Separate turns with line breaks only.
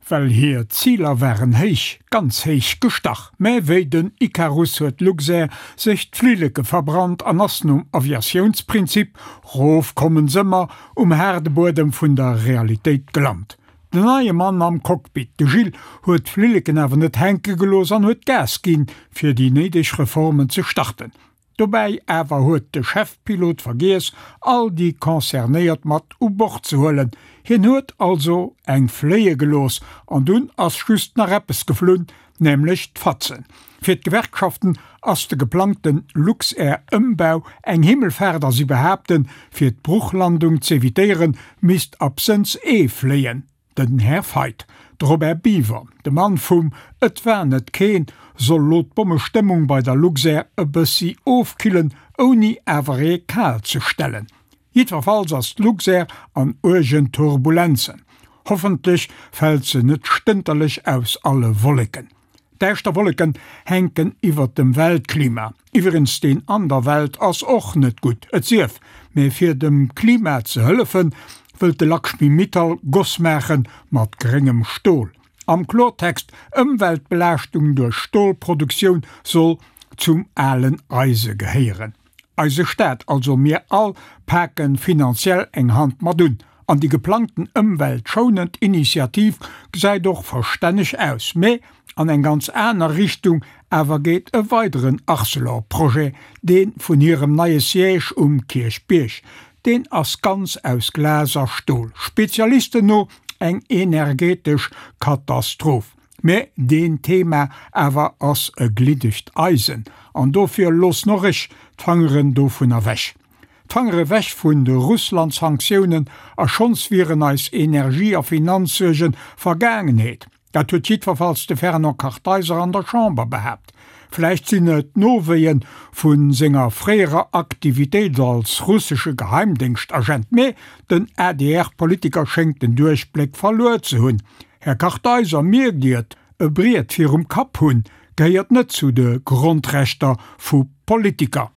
Well hir Ziler waren héich, ganz héich gestach. Mä wéi den Ikarus huet d'Luxair sech d'Flilleke verbrannt an ass nom Aviatiounsprinzip Rof kommen s'ëmmer um haarde Buedem vun der Realitéit gelant. Den neie Mann am Cockpit, de Gilles, huet d'Flilleken awer net hänke gelooss an huet Gas ginn, fir déi néideg Reformen ze starten. Dobäi awer huet de Chefpilot vergiess, all déi Concernéiert mat u Bord ze huelen. Hien huet also eng fléie gelooss an dunn ass just nach eppes geflunn, nämlech d'Fatzen. Fir d'Gewerkschaften ass de geplangte Luxair-Ëmbau eng Himmelfaart a si behaapten, fir d'Bruchlandung z'evitéieren, misst absënns ee fléien. Den Här Feith, de Robert Biever, de Mann vum Et war net keen, soll lo d'Bommestëmmung bei der Luxair e bëssi ofkillen, ouni awer ee kal ze stellen. Jiddwerfalls ass d'Luxair an uergen Turbulenzen. Hoffentlech fält se net stënterlech aus alle Wolleken. Däischter Wolleken hänken iwwert dem Weltklima. Iwwregens deen an der Welt ass och net gutt, et sief, mä fir dem Klima ze hëllefen, wëllt de Lakshmi Mittal Goss maache mat gréngem Stol. Am Klortext, Ëmweltbelaaschtung duerch Stolproduktioun soll zum alen Eise gehéieren. Eise Staat, also mir all, paken finanziell eng Hand mat un. An déi geplangten ëmweltschounend Initiativ gesäit och verstänneg aus. Mä an eng ganz aner Richtung awer geet e weideren Arcelor-Projet, dee vun hirem neie Siège um Kierchbierg. Deen ass ganz aus Glas a Stol, Spezialisten no eng energetesch Katastroph. Mä deen Thema awer ass e gliddegt Eisen, an dofir loossen och ech d'Fangeren dovun ewech. D'Fangere ewech vun de Russland-Sanktiounen, a schonns wieren eis Energie a Finanzsuerge Vergaangenheet. Dat huet jiddwerfalls de Fernand Kartheiser an der Chamber behaapt. Vläicht sinn et d'Nowéie vu senger fréierer Aktivitéit als russesche Geheimdéngschtagent, mä den ADR-Politiker schéngt den Duerchbléck verluer ze hunn. Här Kartheiser, mierkt Dir et, e Briet virum Kapp hunn, gehéiert net zu de Grondrechter vu Politiker.